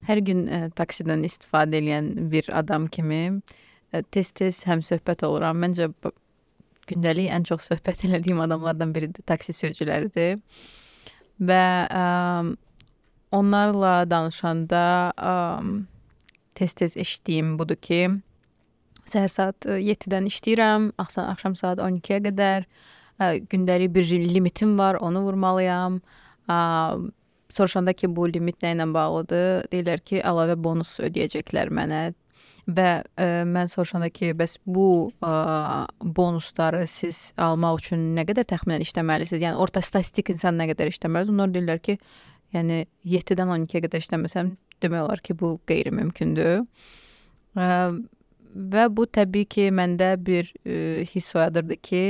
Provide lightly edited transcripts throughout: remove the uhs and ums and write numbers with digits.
Hər gün taksidən istifadə edən bir adam kimi tez-tez həmsöhbət oluram. Məncə gündəlik ən çox söhbət elədiyim adamlardan biri də taksi sürücüləridir. Və onlarla danışanda tez-tez eşitdiyim budur ki, səhər saat 7-dən işləyirəm, axşam saat 12-yə qədər gündəlik bir limitim var, onu vurmalıyam. Soruşanda ki, bu limit nə ilə bağlıdır? Deyirlər ki, əlavə bonus ödəyəcəklər mənə. Və mən soruşanda ki, bəs bu bonusları siz almaq üçün nə qədər təxminən işləməlisiniz? Yəni orta statistik insan nə qədər işləməlidir? Onlar deyirlər ki, yəni 7-dən 12-yə qədər işləməsəm, demək olar ki, bu qeyri-mümkündür. Və bu təbii ki, məndə bir hiss oyadırdı ki,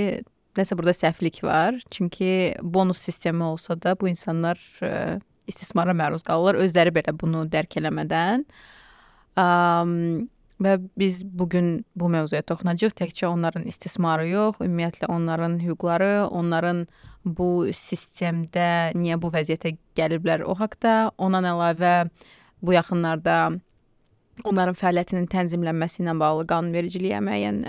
nəsə burada səhvlik var. Çünki bonus sistemi olsa da bu insanlar istismara məruz qalırlar. Özləri belə bunu dərk eləmədən. Və biz bugün bu mövzuya toxunacağıq. Təkcə onların istismarı yox, ümumiyyətlə onların hüquqları, onların bu sistemdə niyə bu vəziyyətə gəliblər o haqda. Ondan əlavə bu yaxınlarda onların fəaliyyətinin tənzimlənməsi ilə bağlı qanunvericiliyə müəyyən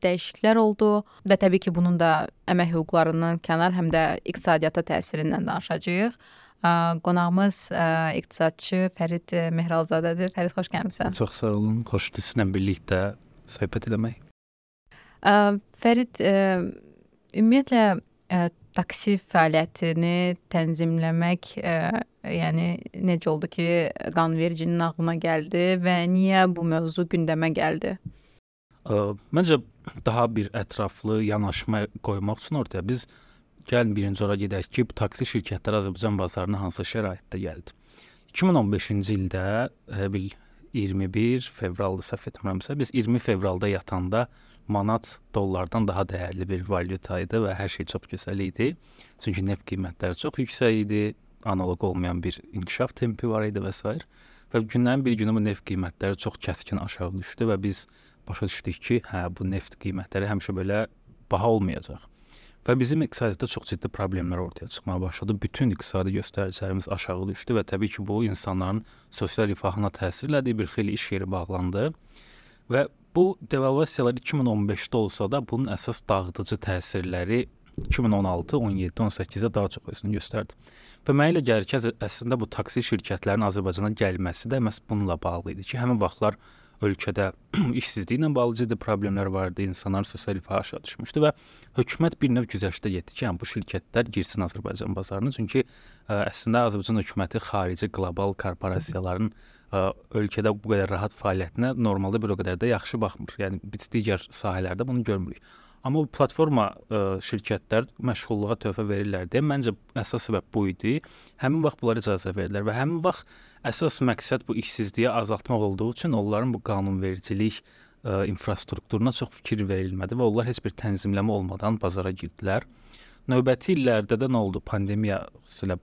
dəyişikliklər oldu və təbii ki, bunun da əmək hüquqlarından kənar həm də iqtisadiyyata təsirindən danışacağıq. Qonağımız iqtisadçı Fərid Mehralzadədir. Fərid, xoş gəlmisən. Çox sağ olun. Xoşdur sizinlə birlikdə söhbət eləmək. Fərid, ümumiyyətlə taksi fəaliyyətini tənzimləmək yəni necə oldu ki, qanunvericinin ağlına gəldi və niyə bu mövzu gündəmə gəldi? Məncə daha bir ətraflı yanaşma qoymaq üçün ortaya biz gəlin birinci ora gedək ki, bu taksi şirkətləri Azərbaycan bazarına hansı şəraitdə gəldi. 2015-ci ildə 21 fevralda səhv etmirəmsə, biz 20 fevralda yatanda manat dollardan daha dəyərli bir valyuta idi və hər şey çox gözəl idi. Çünki neft qiymətləri çox yüksək idi, analoq olmayan bir inkişaf tempi var idi və s. Və günlərin bir günü bu neft qiymətləri çox kəskin aşağı düşdü və biz başa düşdük ki, bu neft qiymətləri həmişə belə baha olmayacaq. Və bizim iqtisadiyyatda çox ciddi problemlər ortaya çıxmağa başladı. Bütün iqtisadi göstəricilərimiz aşağı düşdü və təbii ki, bu insanların sosial rifahına təsir elədi, bir xeyli iş yeri bağlandı. Və bu devalvasiyalar 2015-də olsa da bunun əsas dağıdıcı təsirləri 2016, 17, 18-də daha çox özünü göstərdi. Və mənə elə gəlir ki, əslində bu taksi şirkətlərinin Azərbaycana gəlməsi də məhz bununla bağlı idi ki, həmin vaxtlar ölkədə işsizliklə bağlı ciddi problemlər vardı, insanların sosial rifahı aşağı düşmüşdü və hökumət bir növ güzəştə getdi ki, bu şirkətlər girsin Azərbaycan bazarına. Çünki əslində Azərbaycan hökuməti xarici qlobal korporasiyaların ölkədə bu qədər rahat fəaliyyətinə normalda bir o qədər də yaxşı baxmır. Yəni biz digər sahələrdə bunu görmürük. Amma bu platforma şirkətlər məşğulluğa töhfə verirlər deyə məncə əsas səbəb bu idi. Həmin vaxt bunlara icazə verdilər və həmin vaxt əsas məqsəd bu işsizliyi azaltmaq olduğu üçün onların bu qanunvericilik infrastrukturuna çox fikir verilmədi və onlar heç bir tənzimləmə olmadan bazara girdilər. Növbəti illərdə də nə oldu? Pandemiya xüsusilə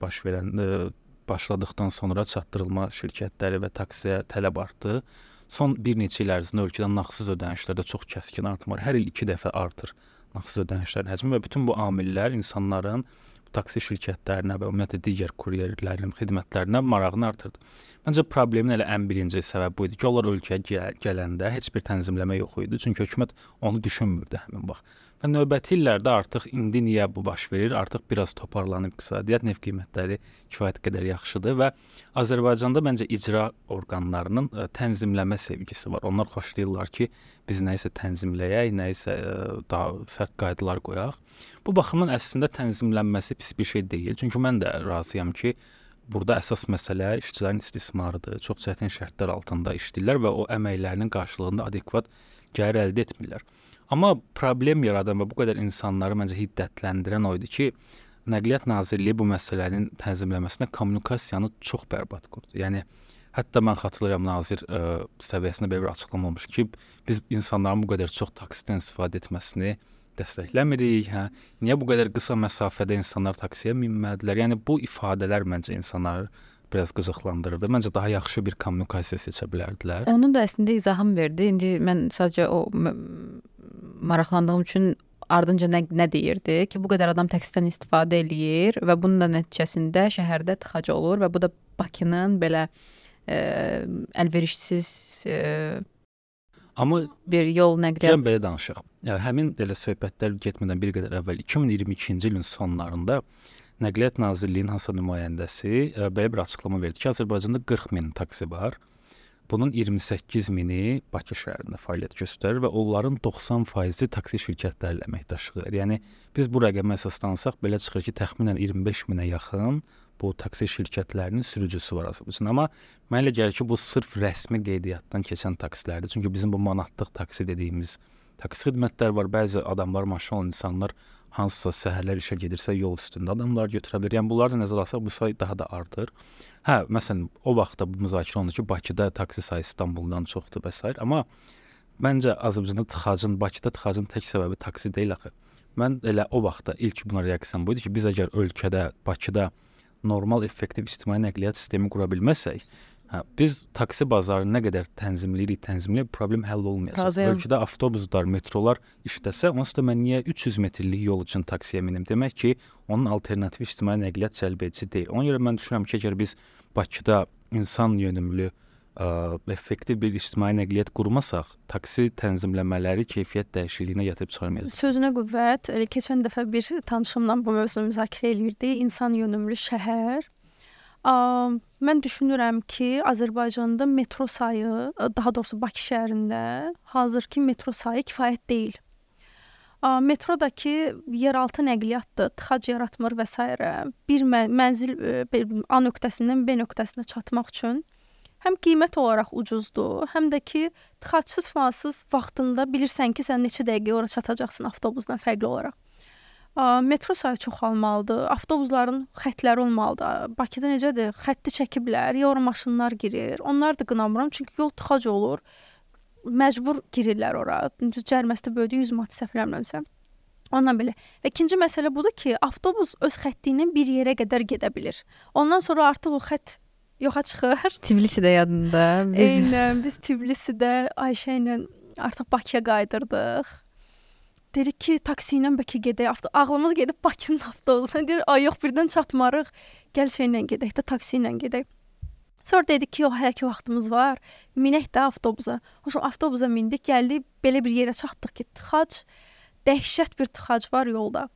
başladıqdan sonra çatdırılma şirkətləri və taksiyə tələb artdı. Son bir neçə il ərzində ölkədə nağdsız ödənişlərdə çox kəskin artım var. Hər il 2 dəfə artır nağdsız ödənişlərin həcmi və bütün bu amillər insanların taksi şirkətlərinə və ümumiyyətlə digər kuryerlərin xidmətlərinə marağını artırdı. Məncə problemin elə ən birinci səbəbi bu idi ki, onlar ölkəyə gələndə heç bir tənzimləmə yox idi. Çünki hökumət onu düşünmürdü həmin vaxt. Və növbəti illərdə artıq indi niyə bu baş verir? Artıq biraz toparlanıb iqtisadiyyat, neft qiymətləri kifayət qədər yaxşıdır və Azərbaycanda məncə icra orqanlarının tənzimləmə sevgisi var. Onlar xoşlayırlar ki, biz nəyisə tənzimləyək, nəyisə daha sərt qaydalar qoyaq. Bu baxımdan əslində tənzimlənməsi pis bir şey deyil. Çünki mən də razıyam ki, burada əsas məsələ işçilərin istismarıdır. Çox çətin şərtlər altında işləyirlər və o əməklərinin qarşılığında adekvat gəlir əldə etmirlər. Amma problem yaradan və bu qədər insanları məncə hiddətləndirən o idi ki, Nəqliyyat Nazirliyi bu məsələnin tənzimləməsinə kommunikasiyanı çox bərbad qurdu. Yəni, hətta mən xatırlayıram, nazir səviyyəsində belə bir açıqlama olmuş ki, biz insanların bu qədər çox taksidən istifadə etməsini dəstəkləmirik. Niyə bu qədər qısa məsafədə insanlar taksiyə minmədilər? Yəni, bu ifadələr məncə insanları biraz qıcıqlandırırdı. Məncə daha yaxşı bir kommunikasiya seçə bilərdilər. Onun da əslində izahım verdi. İndi mən sadəcə o maraqlandığım üçün ardınca nə deyirdi ki, bu qədər adam taksidən istifadə eləyir və bunun da nəticəsində şəhərdə tıxac olur və bu da Bakının belə əlverişsiz Amma bir yol gəlin nəqliyyat. belə danışaq. Həmin elə söhbətlər getmədən bir qədər əvvəl 2022-ci ilin sonlarında Nəqliyyat Nazirliyinin hansısa nümayəndəsi belə bir açıqlama verdi ki, Azərbaycanda 40 min taksi var. Bunun 28 mini Bakı şəhərində fəaliyyət göstərir və onların 90%-i taksi şirkətləri ilə əməkdaşlıq edir. Yəni biz bu rəqəmə əsaslansaq belə çıxır ki, təxminən 25 minə yaxın bu taksi şirkətlərinin sürücüsü var Azərbaycanda. Amma mənə elə gəlir ki, bu sırf rəsmi qeydiyyatdan keçən taksilərdir. Çünki bizim bu manatlıq taksi dediyimiz taksi xidmətləri var. Bəzi adamlar, maşın olan insanlar hansısa səhərlər işə gedirsə yol üstündə adamlar götürə bilər. Yəni bunları da nəzərə alsaq bu sayı daha da artır. Məsələn, o vaxtda bu müzakirə olundu ki, Bakıda taksi sayı İstanbuldan çoxdur və s. Amma məncə Azərbaycanda tıxacın, Bakıda tıxacın tək səbəbi taksi deyil axı. Mən elə o vaxtda ilk buna reaksiyam bu idi ki, biz əgər ölkədə, Bakıda normal, effektiv ictimai nəqliyyat sistemi qura bilməsək, biz taksi bazarını nə qədər tənzimləyirik, problem həll olmayacaq. Razıyam. Ölkədə avtobuslar, metrolar işləsə, onsuz da mən niyə 300 metrlik yol üçün taksiyə minim? Demək ki, onun alternativ ictimai nəqliyyat cəlbedici deyil. Ona görə mən düşünürəm ki, əgər biz Bakıda insan yönümlü, effektiv bir ictimai nəqliyyat qurmasaq, taksi tənzimləmələri keyfiyyət dəyişikliyinə gətirib çıxarmayacaq. Sözünə qüvvət. Keçən dəfə bir tanışımla bu mövzunu müzakirə eləyirdi. İnsan yönümlü şəhər. Mən düşünürəm ki, Azərbaycanda metro sayı, daha doğrusu Bakı şəhərində hazırki metro sayı kifayət deyil. Metrodakı yeraltı nəqliyyatdır, tıxac yaratmır və s. Bir mənzil A nöqtəsindən B nöqtəsinə çatmaq üçün həm qiymət olaraq ucuzdur, həm də ki, tıxacsız fansız vaxtında bilirsən ki, sən neçə dəqiqə ora çatacaqsın avtobusdan fərqli olaraq. Metro sayı çoxalmalıdır, avtobusların xəttləri olmalıdır. Bakıda necədir? Xətti çəkiblər, ya ora maşınlar girir. Onlar da qınamıram, çünki yol tıxac olur. Məcbur girirlər ora. Cəriməsi də böyüdü 100 manat səhv eləmirəmsə. Ondan belə. Və ikinci məsələ budur ki, avtobus öz xətti ilə bir yerə qədər gedə bilir. Ondan sonra artıq o xətt yoxa çıxır. Tbilisidə yadında. Eynən, biz Tbilisidə Ayşə ilə artıq Bakıya qaydırdıq. Dedik ki, taksi ilə bəlkə gedək. Ağlımız gedib Bakının avtobusuna. Deyir, ay yox, birdən çatmarıq. Gəl şeylə gedək də, taksi ilə gedək. Sonra dedik ki, hələ ki vaxtımız var. Minək də avtobusa. Hoşum, avtobusa mindik, gəldik, belə bir yerə çatdıq ki, tıxac, dəhşət bir tıxac var yolda.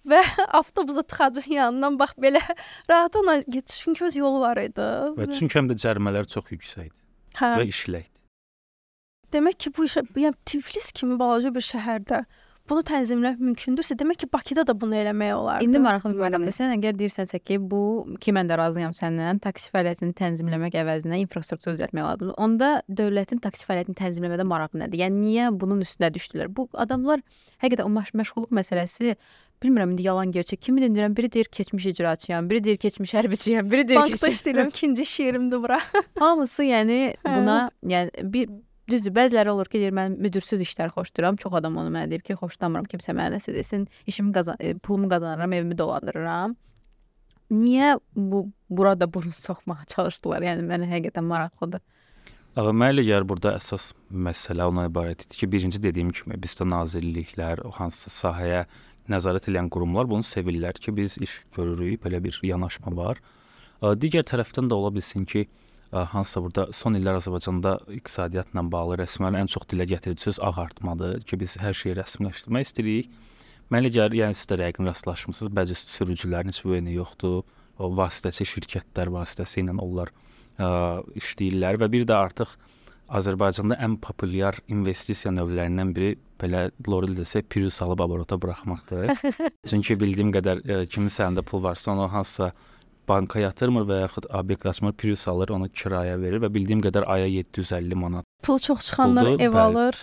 Və avtobusa tıxacın yanından bax belə rahat ona geçiş, çünki öz yolu var idi. Və çünki həm də cərimələr çox yüksəkdir və işləkdir. Demək ki, bu işə, yəni Tiflis kimi balaca bir şəhərdə bunu tənzimləmək mümkündürsə, demək ki, Bakıda da bunu eləmək olardı. İndi maraqlı bir məqamdır. Sən əgər deyirsənsə ki, bu ki mən də razıyam səndən, taksi fəaliyyətini tənzimləmək əvəzinə infrastruktur düzəltmək lazımdır. Onda dövlətin taksi fəaliyyətini tənzimləmədə marağı nədir? Yəni niyə bunun üstünə düşdülər? Bu adamlar həqiqətən o məşğulluq məsələsi bilmirəm indi yalan gerçək. Kimi deyirəm, biri deyir keçmiş icraçıyam, biri deyir keçmiş hərbçiyəm, biri deyir bankda işləyirəm, ikinci iş yerimdir bura. Hamısı yəni buna yəni bir düzdür, bəziləri olur ki, deyir mən müdürsüz işlər xoşlayıram. Çox adam onu mənə deyir ki, xoşlamıram, kimsə mənə nəsə desin, pulumu qazanıram, evimi dolandırıram. Niyə burada bunu soxmağa çalışdılar? Yəni mənə həqiqətən maraqlıdır. Mənə elə gəlir burada əsas məsələ ona ibarət idi ki, birinci dediyim kimi bizdə nazirliklər, o hansısa sahəyə nəzarət edən qurumlar bunu sevirlər ki, biz iş görürük, belə bir yanaşma var. Digər tərəfdən də ola bilsin ki, hansısa burada son illər Azərbaycanda iqtisadiyyatla bağlı rəsmən ən çox dilə gətirdiyi söz ağartmadır ki, biz hər şeyi rəsmiləşdirmək istəyirik. Mənə elə gəlir, yəni siz də rəqəm rastlaşmısınız, bəzi sürücülərin heç veyni yoxdur, o vasitəçi şirkətlər vasitəsilə onlar işləyirlər və bir də artıq Azərbaycanda ən populyar investisiya növlərindən biri belə Lorel desə Prius alıb aborota buraxmaqdır. Çünki bildiyim qədər kimin sənəndə pul varsa onu hansısa banka yatırmır və yaxud obyekt açmır, Prius alır, onu kiraya verir və bildiyim qədər aya 750 manat. Pul çox çıxanlar ev alır,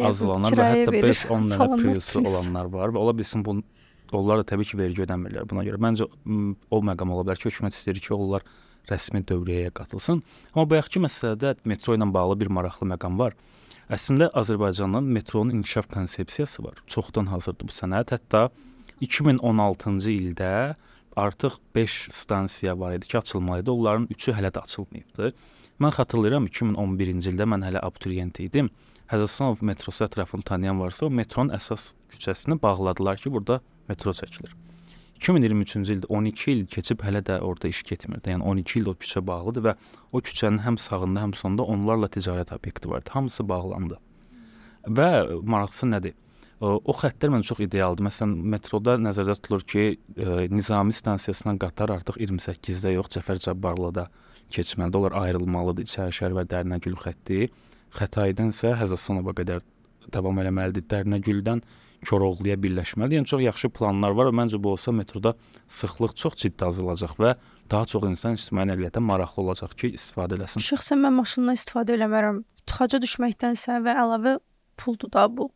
azlanır və hətta 5-10 dənə Priusu olanlar var və ola bilsin onlar da təbii ki, vergi ödəmirlər buna görə. Məncə o məqam ola bilər ki, hökumət istəyir ki, onlar rəsmi dövriyyəyə qatılsın. Amma bayaqki məsələdə metro ilə bağlı bir maraqlı məqam var. Əslində Azərbaycanın metronun inkişaf konsepsiyası var. Çoxdan hazırdır bu sənəd. Hətta 2016-cı ildə artıq 5 stansiya var idi ki, açılmalıydı. Onların 3-ü hələ də açılmayıbdı. Mən xatırlayıram 2011-ci ildə mən hələ abituriyent idim. Həzəslanov metrosu ətrafını tanıyan varsa, o metronun əsas küçəsini bağladılar ki, burada metro çəkilir. 2023-cü ildə 12 il keçib hələ də orada iş getmirdi. Yəni 12 il o küçə bağlıdır və o küçənin həm sağında, həm sonunda onlarla ticarət obyekti vardı. Hamısı bağlandı. Və maraqlısı nədir? O xəttlər məncə çox idealdır. Məsələn, metroda nəzərdə tutulur ki, Nizami stansiyasından qatar artıq 28-də yox, Cəfər Cabbarlıda keçməlidir. Onlar ayrılmalıdır. İçərişəhər və Dərnəgül xətti. Xətaydan isə Həzəsanova qədər davam eləməlidir. Dərnəgüldən Koroğluya birləşməlidir. Yəni çox yaxşı planlar var və məncə bu olsa metroda sıxlıq çox ciddi azalacaq və daha çox insan ictimai nəqliyyata maraqlı olacaq ki, istifadə eləsin. Şəxsən mən maşından istifadə eləmərəm. Tıxaca düşməkdənsə və əlavə puldur da bu.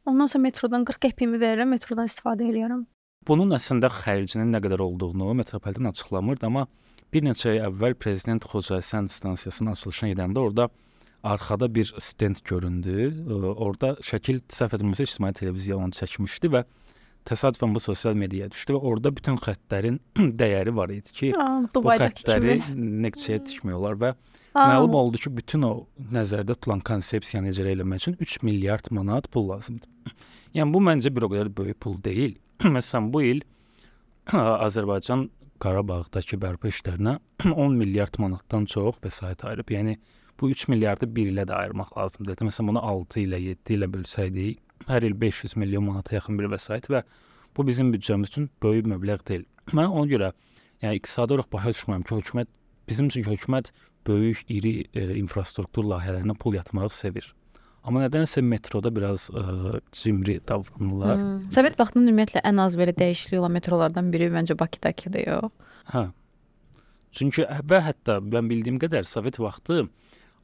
Ondan sonra metrodan 40 qəpiyimi verirəm, metrodan istifadə edirəm. Bunun əslində xərcinin nə qədər olduğunu metropoliten açıqlamırdı, amma bir neçə ay əvvəl prezident Xocasən stansiyasının açılışına gedəndə orada arxada bir stend göründü. Orada şəkil səhv etmirəmsə ictimai televiziya onu çəkmişdi və təsadüfən bu sosial mediaya düşdü və orada bütün xəttlərin dəyəri var idi ki, bu xəttləri neçəyə tikmiyorlar və məlum oldu ki, bütün o nəzərdə tutulan konsepsiyanı icra etmək üçün 3 milyard manat pul lazımdır. Yəni bu məncə bir o qədər böyük pul deyil. Məsələn, bu il Azərbaycan Qarabağdakı bərpa işlərinə 10 milyard manatdan çox vəsait ayırıb. Yəni bu 3 milyardı bir ilə də ayırmaq lazımdır. Məsələn, bunu 6 ilə, 7 ilə bölsəydik, hər il 500 milyon manata yaxın bir vəsait və bu bizim büdcəmiz üçün böyük məbləğ deyil. Mən ona görə yəni iqtisadi olaraq başa düşmürəm ki, bizim üçün hökumət böyük, iri infrastruktur layihələrinə pul yatırmağı sevir. Amma nədənsə metroda biraz cimri davranırlar. Sovet vaxtında ümumiyyətlə ən az belə dəyişiklik olan metrolardan biri məncə Bakıdakıdır, yox? Hə. Çünki və hətta mən bildiyim qədər Sovet vaxtı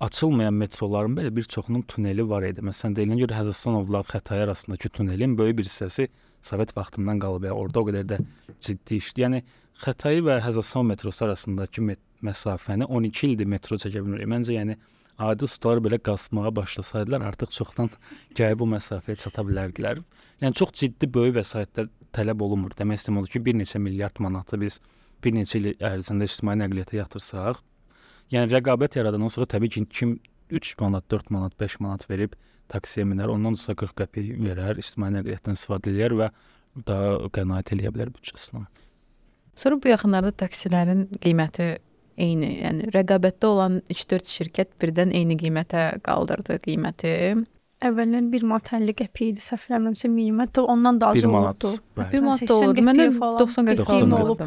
açılmayan metroların belə bir çoxunun tuneli var idi. Məsələn, deyilən görə Həzəsanovla Xətai arasındakı tunelin böyük bir hissəsi Sovet vaxtından qalıb. Orada o qədər də ciddi işdir. Yəni Xətai və Həzəsanov metrosu arasındakı məsafəni 12 ildir metro çəkə bilmir. Məncə yəni adi ustalar belə qazmağa başlasaydılar artıq çoxdan gəlib bu məsafəyə çata bilərdilər. Yəni çox ciddi böyük vəsaitlər tələb olunmur. Demək istəyirəm odur ki, bir neçə milyard manatı biz bir neçə il ərzində ictimai nəqliyyata yatırsaq, yəni rəqabət yaradandan sonra təbii ki, kim 3 manat, 4 manat, 5 manat verib taksiyə minər, ondan sonra 40 qəpik verər, ictimai nəqliyyatdan istifadə edər və daha qənaət eləyə bilər büdcəsinə. Sonra bu yaxınlarda taksilərin qiyməti eyni, yəni rəqabətdə olan 3-4 şirkət birdən eyni qiymətə qaldırdı qiyməti. Əvvəllər 1 manat 50 qəpik idi, səhv eləmirəmsə minimum, ondan da az olurdu. 1 manat da olurdu. Mənə 90 qəpik olub.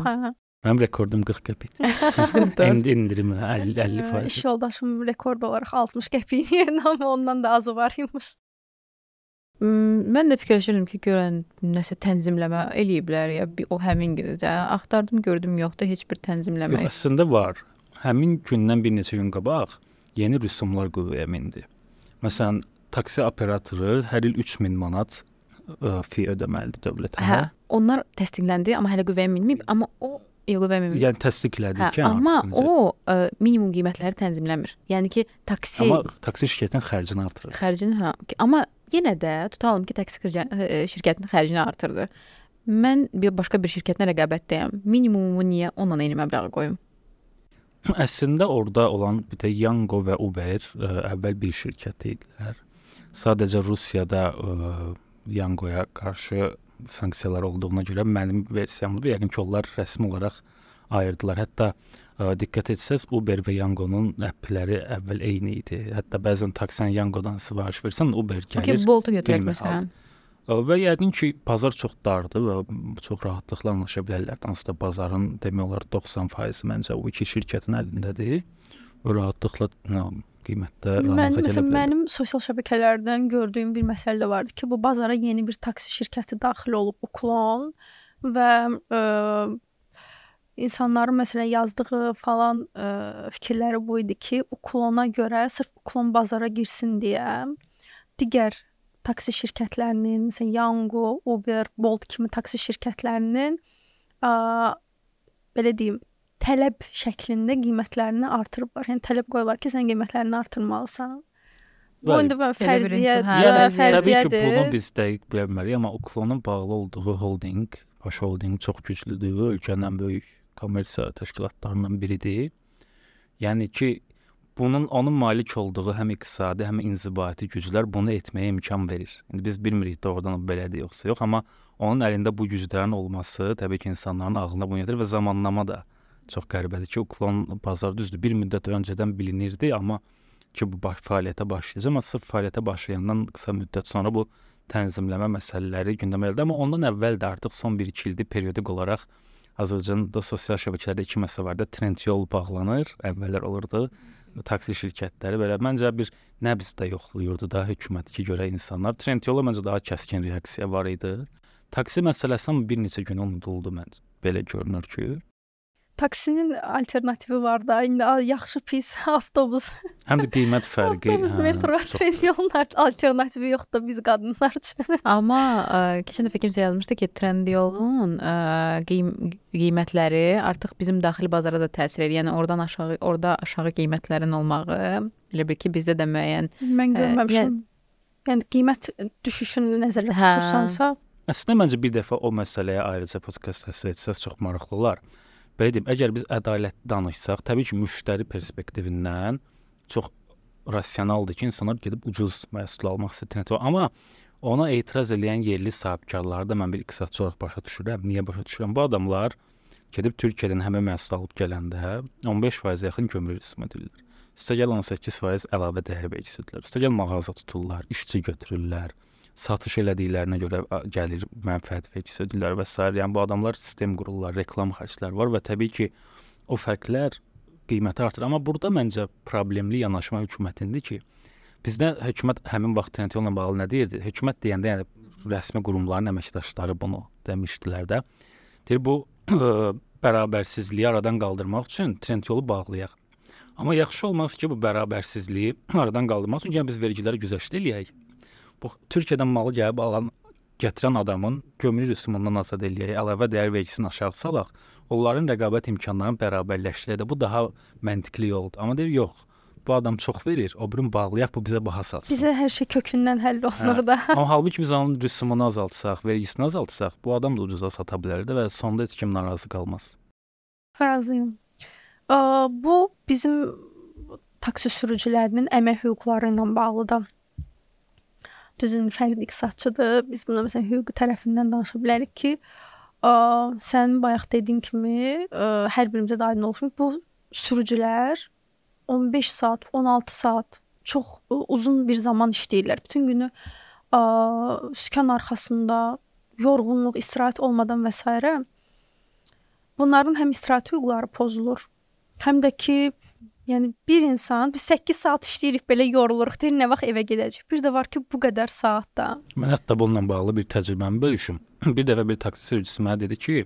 Mənim rekordum 40 qəpikdir. İndirim 50%. İş yoldaşım rekord olaraq 60 qəpik yerinə, amma ondan da azı var imiş. Mən də fikirləşirdim ki, görən nəsə tənzimləmə eləyiblər ya o həmin gündə. Axtardım, gördüm yoxdur heç bir tənzimləmə. Yox, əslində var. Həmin gündən bir neçə gün qabaq yeni rüsumlar qüvvəyə mindi. Məsələn, taksi operatoru hər il 3000 manat fi ödəməlidir dövlətə. Hə, onlar təsdiqləndi, amma hələ qüvvəyə minməyib, amma o yəni təsdiqlədi ki, amma o minimum qiymətləri tənzimləmir. Yəni ki, taksi şirkətinin xərcini artırır. Amma yenə də tutalım ki, taksi şirkətinin xərcini artırdı. Mən başqa bir şirkətlə rəqabətdəyəm. Minimumu niyə ondan eyni məbləği qoyum? Əslində orada olan bir də Yango və Uber əvvəl bir şirkət idilər. Sadəcə Rusiyada Yangoya qarşı sanksiyalar olduğuna görə mənim versiyamdır. Yəqin ki, onlar rəsmi olaraq ayırdılar. Hətta diqqət etsəz, Uber və Yangonun appləri əvvəl eyni idi. Hətta bəzən taksən Yangodan sifariş versən, Uber gəlir. Boltu götürək məsələn. Və yəqin ki, bazar çox dardır və çox rahatlıqla anlaşa bilərlər. Hansısa bazarın demək olar 90% məncə o iki şirkətin əlindədir. Və rahatlıqla qiymətdə rahat edə bilərlər. Mənim sosial şəbəkələrdən gördüyüm bir məsələ vardı ki, bu bazara yeni bir taksi şirkəti daxil olub, Uklon və insanların məsələn yazdığı falan fikirləri bu idi ki, Uklona görə sırf Uklon bazara girsin deyə digər taksi şirkətlərinin, məsələn Yango, Uber, Bolt kimi taksi şirkətlərinin belə deyim, tələb şəklində qiymətlərini artırıblar. Yəni tələb qoyurlar ki, sən qiymətlərini artırmalısan. Bu indi fərziyyədir. Təbii ki, bunu biz dəqiq bilə bilmərik, amma Uklonun bağlı olduğu holding, baş holding çox güclüdür. Ölkənin ən böyük kommersiya təşkilatlarından biridir. Yəni ki, onun malik olduğu həm iqtisadi, həm inzibati güclər bunu etməyə imkan verir. İndi biz bilmirik doğrudan belədir yoxsa yox, amma onun əlində bu güclərin olması təbii ki, insanların ağlına bunu gətirir və zamanlama da çox qəribədir ki, o klon bazar düzdür. Bir müddət öncədən bilinirdi, amma ki bu fəaliyyətə başlayacaq, amma sırf fəaliyyətə başlayandan qısa müddət sonra bu tənzimləmə məsələləri gündəmə gəldi, amma ondan əvvəl də artıq son 1-2 ildir periodik olaraq Azərbaycanda sosial şəbəkələrdə 2 məsələ var da, trend yol bağlanır, əvvəllər olurdu. Taksi şirkətləri belə məncə bir nəbzdə yoxlayırdı da hökumət ki, görə insanlar. Trend yola məncə daha kəskin reaksiya var idi. Taksi məsələsi bir neçə gün unuduldu məncə. Belə görünür ki. Taksinin alternativi var da, indi yaxşı pis avtobus. Həm də qiymət fərqi. Avtobus, metro, trend yolun alternativi yoxdur biz qadınlar üçün. Amma keçən dəfə kimsə yazmışdı ki, trend yolun qiymətləri artıq bizim daxili bazara da təsir edir. Yəni orada aşağı qiymətlərin olmağı, elə bil ki, bizdə də müəyyən. Mən görməmişəm. Yəni qiymət düşüşünü nəzərdə tutursansa. Əslində məncə bir dəfə o məsələyə ayrıca podkast həsr etsəz çox maraqlı olar. Belə deyim, əgər biz ədalətli danışsaq, təbii ki, müştəri perspektivindən çox rasionaldır ki, insanlar gedib ucuz məhsul almaq istəyir. Amma ona etiraz edən yerli sahibkarları da mən bir iqtisadçı olaraq başa düşürəm. Niyə başa düşürəm? Bu adamlar gedib Türkiyədən həmin məhsul alıb gələndə 15% yaxın gömrük rüsum edirlər. Üstəgəl 18% əlavə dəyər vergisi ödəyirlər. Üstəgəl mağaza tuturlar, işçi götürürlər. Satış elədiklərinə görə gəlir mənfəət vergisi ödəyirlər və s. Yəni bu adamlar sistem qururlar, reklam xərcləri var və təbii ki, o fərqlər qiyməti artır. Amma burada məncə problemli yanaşma hökumətindir ki, bizdə hökumət həmin vaxt trend yolla bağlı nə deyirdi? Hökumət deyəndə, yəni rəsmi qurumların əməkdaşları bunu demişdilər də. Deyir, bu bərabərsizliyi aradan qaldırmaq üçün trend yolu bağlayaq. Amma yaxşı olmaz ki, bu bərabərsizliyi aradan qaldırmaq üçün biz vergiləri güzəşt eləyək. Bu Türkiyədən malı gəlib gətirən adamın gömrük rüsumundan azad eləyək, əlavə dəyər vergisini aşağı salaq, onların rəqabət imkanlarını bərabərləşdirək. Bu daha məntiqli yoldur. Amma deyir, yox, bu adam çox verir, o birini bağlayaq, bu bizə baha satsın. Bizə hər şey kökündən həll olunur da. Amma halbuki biz onun rüsumunu azaltsaq, vergisini azaltsaq, bu adam da ucuza sata bilərdi və sonda heç kim narazı qalmaz. Razıyam. Bu bizim taksi sürücülərinin əmək hüquqları ilə bağlıdır. Düzün fərqli iqtisadçıdır. Biz buna məsələn hüquqi tərəfindən danışa bilərik ki, sən bayaq dediyin kimi hər birimizə də aydın olsun. Bu sürücülər 15 saat, 16 saat çox uzun bir zaman işləyirlər. Bütün günü sükan arxasında yorğunluq, istirahət olmadan və s. Bunların həm istirahət hüquqları pozulur, həm də ki, yəni bir insan, biz 8 saat işləyirik, belə yoruluruq, deyir, nə vaxt evə gedəcək. Bir də var ki, bu qədər saatda. Mən hətta bununla bağlı bir təcrübəmi bölüşüm. Bir dəfə bir taksi sürücüsü mənə dedi ki,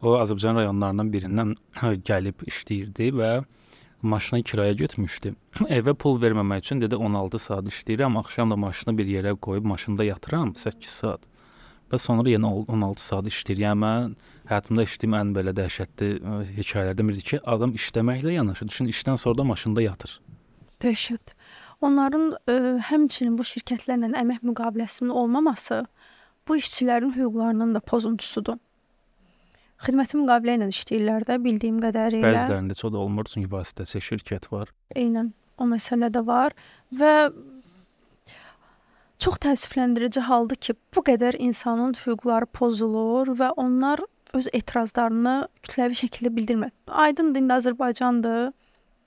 o Azərbaycan rayonlarından birindən gəlib işləyirdi və maşını kiraya götürmüşdü. Evə pul verməmək üçün dedi 16 saat işləyirəm, axşam da maşını bir yerə qoyub maşında yatıram 8 saat. Və sonra yenə 16 saat işləyir. Yəni mən həyatımda işlədiyim ən belə dəhşətli hekayələrdən biridir ki, adam işləməklə yanaşı, düşün, işdən sonra da maşında yatır. Dəhşət. Onların həmçinin bu şirkətlərlə əmək müqaviləsinin olmaması bu işçilərin hüquqlarının da pozuntusudur. Xidməti müqavilə ilə işləyirlər də, bildiyim qədərilə. Bəzilərində çox da olmur, çünki vasitəçi şirkət var. Eynən, o məsələ də var və çox təəssüfləndirici haldır ki, bu qədər insanın hüquqları pozulur və onlar öz etirazlarını kütləvi şəkildə bildirmir. Aydındır, indi Azərbaycandır.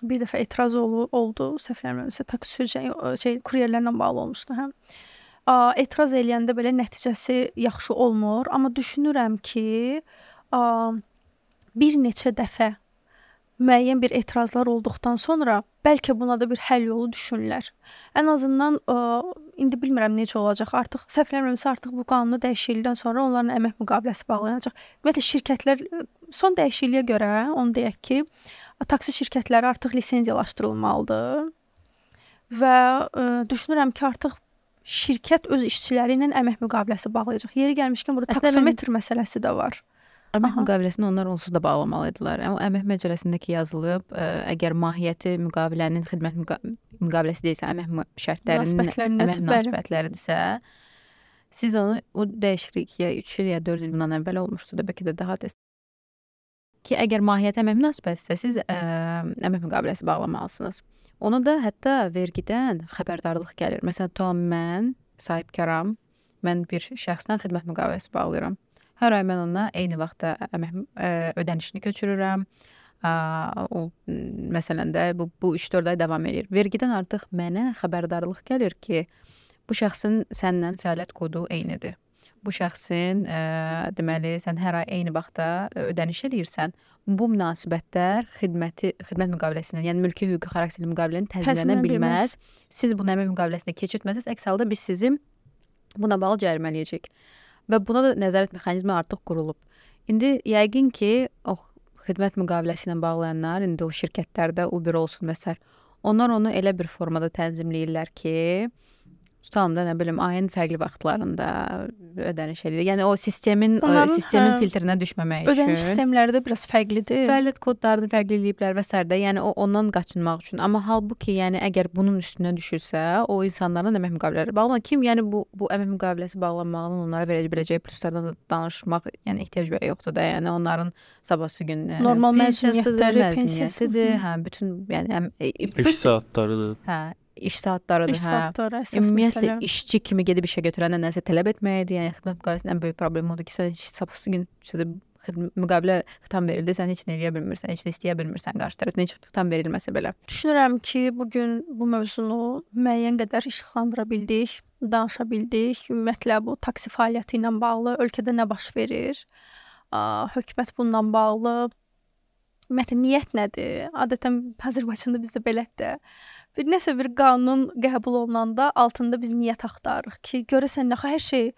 Bir dəfə etiraz oldu, səhvləmirəmsə, taksi kuryerlərlə bağlı olmuşdu, hə. Etiraz eləyəndə belə nəticəsi yaxşı olmur, amma düşünürəm ki, bir neçə dəfə müəyyən bir etirazlar olduqdan sonra bəlkə buna da bir həll yolu düşünürlər. Ən azından indi bilmirəm necə olacaq. Artıq səhvləmirəmsə artıq bu qanunu dəyişiklikdən sonra onların əmək müqaviləsi bağlanacaq. Ümumiyyətlə şirkətlər son dəyişikliyə görə onu deyək ki, taksi şirkətləri artıq lisenziyalaşdırılmalıdır. Və düşünürəm ki, artıq şirkət öz işçiləri ilə əmək müqaviləsi bağlayacaq. Yeri gəlmişkən burada taksometr məsələsi də var. Əmək müqaviləsini onlar onsuz da bağlamalıdırlar. Amma əmək məcəlləsindəki yazılıb, əgər mahiyyəti müqavilənin xidmət müqaviləsi deyilsə, əmək şərtlərinin əmək münasibətləridirsə, siz onu o dəyişiklik ya 3 il ya 4 il bundan əvvəl olmuşdu da bəlkə də daha tez. ki, əgər mahiyyəti əmək münasibətsə, siz əmək müqaviləsi bağlamalısınız. Ona da hətta vergidən xəbərdarlıq gəlir. Məsələn, tutam mən sahibkaram, mən bir şəxslə xidmət müqaviləsi bağlayıram. Hər ay mən ona eyni vaxtda əmək ödənişini köçürürəm. O məsələn də bu 3-4 ay davam edir. Vergidən artıq mənə xəbərdarlıq gəlir ki, bu şəxsin səndən fəaliyyət kodu eynidir. Bu şəxsin deməli sən hər ay eyni vaxtda ödəniş eləyirsən. Bu münasibətlər xidmət müqaviləsindən, yəni mülki hüquqi xarakterli müqavilənin təzminlənə bilməz. Siz bunu əmək müqaviləsində keçirtməsəz, əks halda biz sizi buna bağlı cərimələyəcəyik. Və buna da nəzarət mexanizmi artıq qurulub. İndi yəqin ki, o xidmət müqaviləsi ilə bağlayanlar, indi o şirkətlərdə Uber olsun və s. onlar onu elə bir formada tənzimləyirlər ki, tutalım da, nə bilim, ayın fərqli vaxtlarında ödəniş edir. Yəni o sistemin filtrinə düşməmək üçün. Ödəniş sistemləri də biraz fərqlidir. Fəaliyyət kodlarını fərqli eləyiblər və s. Yəni ondan qaçınmaq üçün. Amma halbuki, yəni əgər bunun üstünə düşürsə, o insanların əmək müqavilələri bağlanır. Kim yəni bu əmək müqaviləsi bağlanmağının onlara verə biləcəyi pluslardan danışmaq, yəni ehtiyac belə yoxdur da. Yəni onların sabahsı gün normal məzuniyyətləri, hə, bütün yəni iş saatlarıdır. Hə, iş saatlarıdır, İş saatları əsas ümumiyyətlə məsələ. işçi kimi gedib işə götürəndən nəsə tələb etməyidir. Yəni xidmət müqaviləsinin ən böyük problemi odur ki, sən sabahsı gün müqavilə xitam verildi, sən heç nə eləyə bilmirsən, heç nə istəyə bilmirsən qarşı tərəfdən, heç xitam verilməsə belə. Düşünürəm ki, bu gün bu mövzunu müəyyən qədər işıqlandıra bildik, danışa bildik. Ümumiyyətlə bu taksi fəaliyyəti ilə bağlı ölkədə nə baş verir? Hökumət bununla bağlı ümumiyyətlə niyyət nədir? Adətən Azərbaycanda bizdə belədir. Nəsə bir qanun qəbul olunanda altında biz niyyət axtarırıq ki, görəsən nəxə hər şey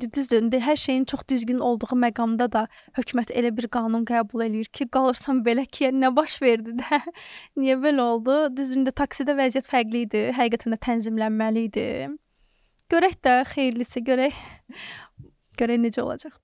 düzdür, hər şeyin çox düzgün olduğu məqamda da hökumət elə bir qanun qəbul eləyir ki, qalırsan belə ki, nə baş verdi də, niyə belə oldu? Düzdür, taksidə vəziyyət fərqli idi, həqiqətən də tənzimlənməli idi. Görək də, xeyirlisi, görək necə olacaq.